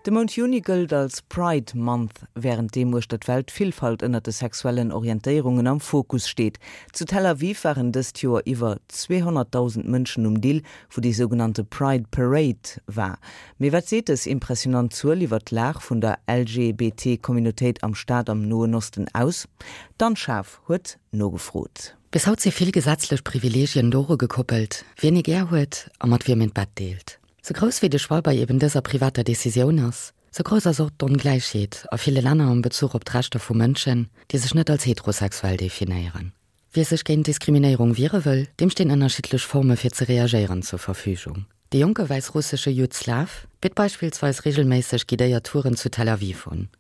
De Mount Juni gëllt als Pride Month, wärend deem uechter d'Welt d'Villfalt ënnert de sexuellen Orientéierungen am Fokus steet. Zu Tel Aviv waren dëst Joer iwwer 200.000 Mënschen um Dill, wou déi sougenannte Pride Parade war. Mee wat seet dës impressionant Zuel iwwer d'Lag vun der LGBT-Communautéit am Staat am Noen Osten aus? D'Anne Schaaf huet nogefrot. Bis haut si vill gesetzlech Privileegien doru gekoppelt, wien ee gär huet a mat wiem een d'Bett deelt. Sou grouss wéi de Choix bei eben dëser privater Decisioun ass, sou grouss ass och d'Ongläichheet a ville Länner am Bezuch op d'Rechter vu Mënschen, déi sech net als heterosexuell definéieren. Wie sech géint Diskriminéierung wiere wëll, deem stinn ënnerschiddlech Forme fir ze reagéieren zur Verfügung. De jonke wäissrussesche Jud Slav bitt beispillsweis reegelméisseg guidéiert Touren zu Tel Aviv un.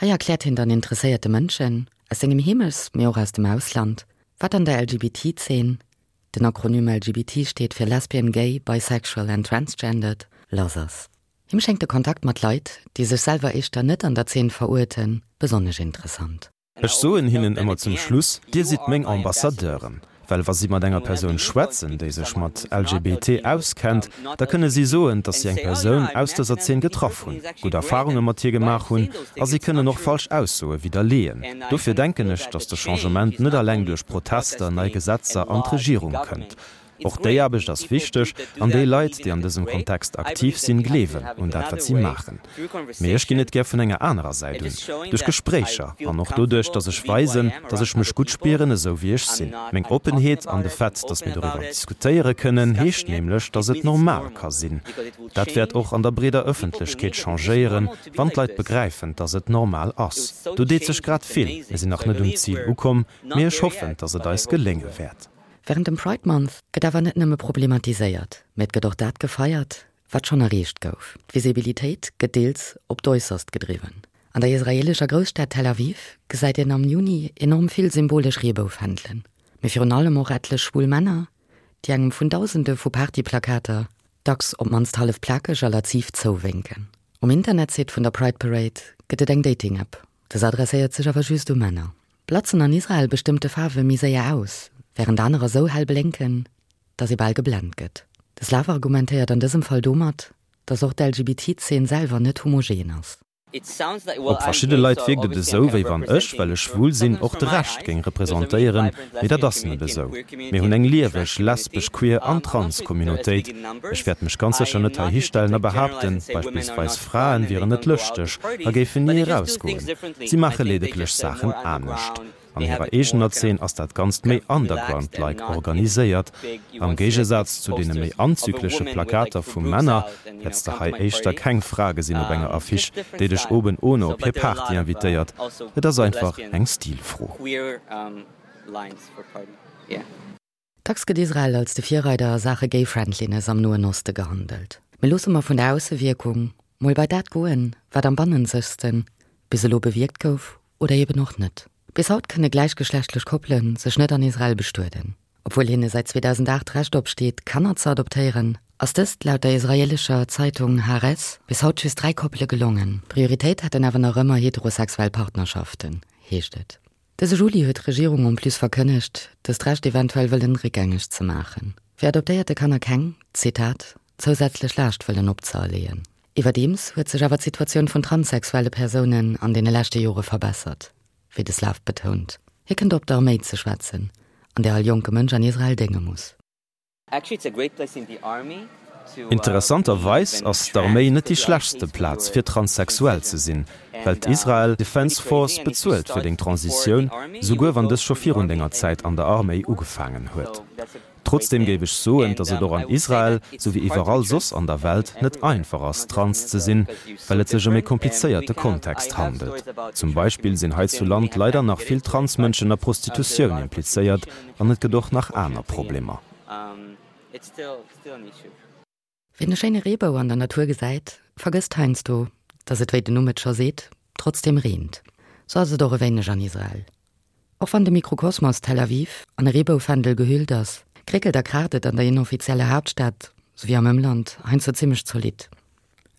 Hei erkläert hien dann interesséierte Mënschen, aus sengem Heemechts-, mee och aus dem Ausland, wat an der LGBT-Zeen, Den Akronym LGBT steet fir Lesbian, Gay, Bisexual and Transgendered, lass ass. Him schéngt de Kontakt mat Leit, déi sech selwer éischter net an der Zeen veruerten, besonnesch interessant. Ech soen hinnen ëmmer zum Schluss, Dir sidd meng Ambassadeuren. Well wa si mat enger Persoun schwätzen, déi sech mat LGBT auskennt, da kënne si soen, datt si eng Persoun aus dëser Zeen getraff hunn, gutt Erfarunge mat hir gemaach hunn a si kënnen och falsch Aussoe widderleeën. Dofir denken ech, datt de Changement net eleng duerch Protester, nei Gesetzer an d'Regierung kënnt. Och déi Aarbecht ass wichteg an déi Leit, déi an dësem Kontext aktiv sinn, gleewen un dat, wat si maachen. Mee ech ginn et gär vun enger anerer Säit un, duerch Gespréicher an och doduerch, datt ech weisen, datt ech mech gutt spieren, esou wéi ech sinn. Meng Oppenheet an de Fait, datt mir doriwwer diskutéiere kënnen, heescht nämlech, datt et normal ka sinn. Dat wäert och an der breeder Ëffentlechkeet changéieren, Wann d'Leit begräifen, dass et normal ass. Do deet sech grad vill. Mir sinn nach net um Zil ukomm, mee ech hoffen, dass et eis gelénge wäert. Wärend dem Pride Month gëtt awer net nëmme problematiséiert, mä et gëtt och dat gefeiert, wat schonn erreecht gouf. D'Visibilitéit gëtt deels op d'Äusserst gedriwwen. An der israeelescher Grousstad Tel Aviv gesäit een am Juni enorm vill symbolesch Reeboufändelen, mee virun allem och etlech schwul Männer, déi engem vun Dausende vu Partyplakater, dacks op d'mannst hallef plakeg a laziv zouwénken. Um Internetsite vun der Pride Parade gëtt et eng Dating-App, dës adresséiert sech awer just u Männer. Blatzen an Israel bestëmmte Faarwe méi séier aus, wärend anerer sou hell blénken, datt ee bal geblent gëtt. De Slav argumentéiert an dësem Fall domat, datt och d'LGBT-Zeen selwer net homogen ass. Op verschidde Leit wierkt et esou, wéi wann ech, well ech schwul sinn, och de Rescht géing representéieren, mee dat ass net esou. Mir hunn eng lieweg lesbesch, queer an trans Communautéit. Ech wäert mech ganz sécher net hei histellen a behaapten, beispillsweis Fraen wieren net lëschteg a géifen ni erausgoen. Si maache ledeglech Saachen anescht. An hirer eegener Zeen ass dat Ganzt méi underground-like organiséiert. Am Géigesaz zu deene méi anzügleche Plakater vu Männer, hätts de hei éischter keng Fra gesinn op enger Affiche, déi dech oben ohne op hir Party invitéiert. Et ass einfach eng Stilfro. Dacks gëtt Israel als de Virreider a Saache Gay-Friendliness am Noen Oste gehandelt. Mee loosse mer vun der Aussewierkung mol bei dat goen, wat am bannenzegsten bis elo bewierkt gouf oder eben och net. Bis haut kënne gläichgeschlechtlech Koppele sech net an Israel bestueden. Obwuel hinne säit 2008 d'Recht opsteet, Kanner ze adoptéieren, ass dëst laut der israeelescher Zeitung Haaretz bis haut just 3 Koppele gelongen. Prioritéit hätten awer nach ëmmer heterosexuell Partnerschaften, heescht et. Dëse Juli huet d'Regierung en plus verkënnegt, dëst Recht eventuell wëllen réckgängeg ze maachen, fir adoptéierte Kanner keng, Zitat, zousätzlech Laascht wëllen opzëerleeën. Iwwerdeems huet sech awer d'Situatioun vun transsexuelle Persounen an deene leschte Jore verbessert, wéi de Slav betount. Hie kënnt op d'Arméi ze schwätzen, an där all jonke Mënsch an Israel dénge muss. Interessanterweis ass d'Arméi net déi schlechtste Plaz fir transsexuell ze sinn, well d'Israel Defense Force bezuelt fir deng Transitioun, souguer wann dës scho virun denger Zäit an der Arméi ugefaangen huet. Trotzdeem géif ech soen, datt et och an Israel, sou wéi iwwerall soss an der Welt, net einfach ass, trans ze sinn, well et sech ëm e komplizéierte Kontext handelt. Zum Beispill sinn hei zu Land leider nach vill Transmënschen a Prostitutioun implizéiert an et gëtt och nach aner Problemer. Wien e schéine Reebou an der Natur gesäit, vergësst heiansdo, dass et, wéi den Numm et scho seet, trotzdeem reent. Sou ass et och e wéineg an Israel. Och wann de Mikrokosmos Tel Aviv an e Reeboufändel gehüllt ass, kréckelt a kraacht et an der inoffizieller Haaptstad, souwéi am Ëmland, heiansdo zimmlech zolidd.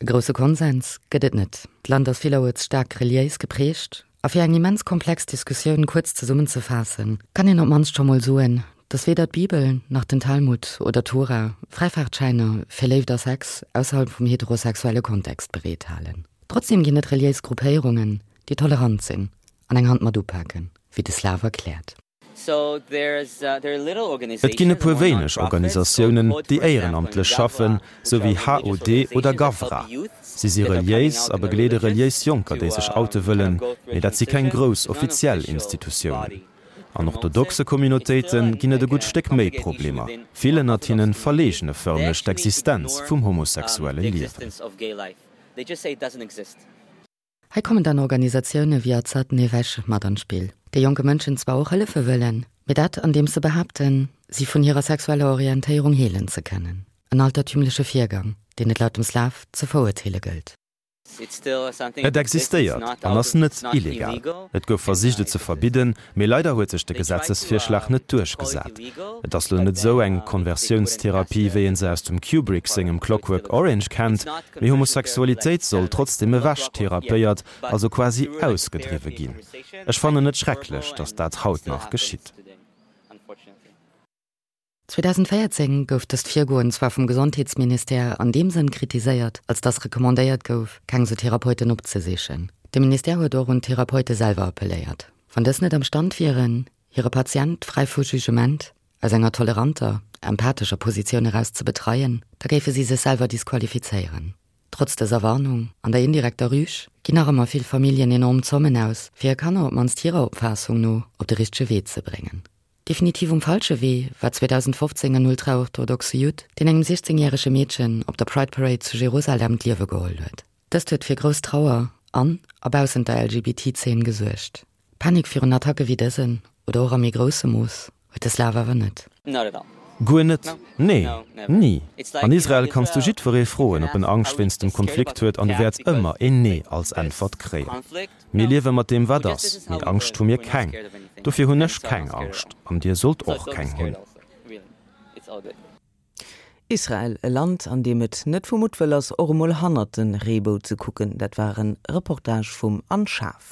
E grousse Konsens gëtt et net. D'Land ass villeruerts staark reliéis geprägt a fir eng immens komplex Diskussioun kuerz zesummenzefaassen, kann een op d'mannst scho mol soen, datt weder d'Bibel nach den Talmud oder d'Tora Fräifaartschäiner fir Léift a Sex ausserhalb vum heterosexuelle Kontext bereethalen. Trotzdem ginn et reliéis Gruppéierungen, déi tolerant sinn an eng Hand mat upaken, wéi de Slav erkläert. Et ginn e puer wéineg Organisatiounen, déi éierenamtlech schaffen, sou wéi HOD oder Gavra. Si si reliéis a begleede reliéis Jonker, déi sech oute wëllen, mee dat si keng grouss offiziell Institutiounen. An orthodoxe Communautéite ginn et e gutt Stéck méi Problemer. Vill ënnert hinne verleegne fërmlech d'Existenz vum homosexuelle Liewen. Hei kommen dann Organisatioune wéi Azad Nefesh mat an d'Spill, déi jonke Mënschen zwar och hëllefe wëllen, mee dat andeems se behaapten, si vun hirer sexueller Orientéierung heelen ze kënnen. En altertümleche Virgang, deen et laut dem Slav ze verurteele gëllt. Et existéiert an ass net illegal. Et gouf versicht et ze verbidden, mee leider huet sech de Gesetzesvirschlag net duerchgesat. Et ass lo net esou eng Konversiounstherapie wéi een se aus dem Kubrick sengem Clockwork Orange kennt, mee Homosexualitéit soll trotzdem ewech therapéiert, also quasi ausgedriwwe ginn. Ech fannen et schrecklech, datt dat haut nach geschitt. 2014 gouf dëst Virgoen zwar vum Gesondheetsministère an deem Sënn kritiséiert, als datt recommandéiert gouf, keng sou Therapeuten opzesichen. De Ministère huet och un d'Therapeute selwer appelléiert, wann dës net am Stand wieren, hire Patient fräi vu Jugement, aus enger toleranter, empathescher Positioun eraus ze betreien, da géife si sech selwer disqualifizéieren. Trotz dëser Warnung an der indirekter Rüg ginn nach ëmmer vill Familljen enorm Zommen aus, fir hir Kanner op d'mannst hirer Opfaassung no op de richtege Wee ze bréngen. Definitiv um falsche Wee war 2015 en ultraorthodoxe Judd, deen engem 16 järege Meedchen op der Pride Parade zu Jerusalem d'Liewe geholl huet. Dëst huet fir grouss Trauer an a baussent der LGBT-Zeen gesuergt. Panik virun Attacke wéi dësen, oder och a méi groussem Mooss, huet de Slav awer net. Guer net, nee, ni. An Israel kanns du jiddweree froen, ob en Angscht wéinst dem Konflikt huet, an du wäerts ëmmer een Nee als Äntwert kréien. Mir liewe mat deem wat ass, mee Angscht hu mir keng. Dofir hunn ech keng Angscht, an dir sollt och keng hunn. Israel, e Land, an deem et net vu Muttwëll ass, och emol hannert de Reebou ze kucken. Dat war e Reportage vum Anne Schaaf.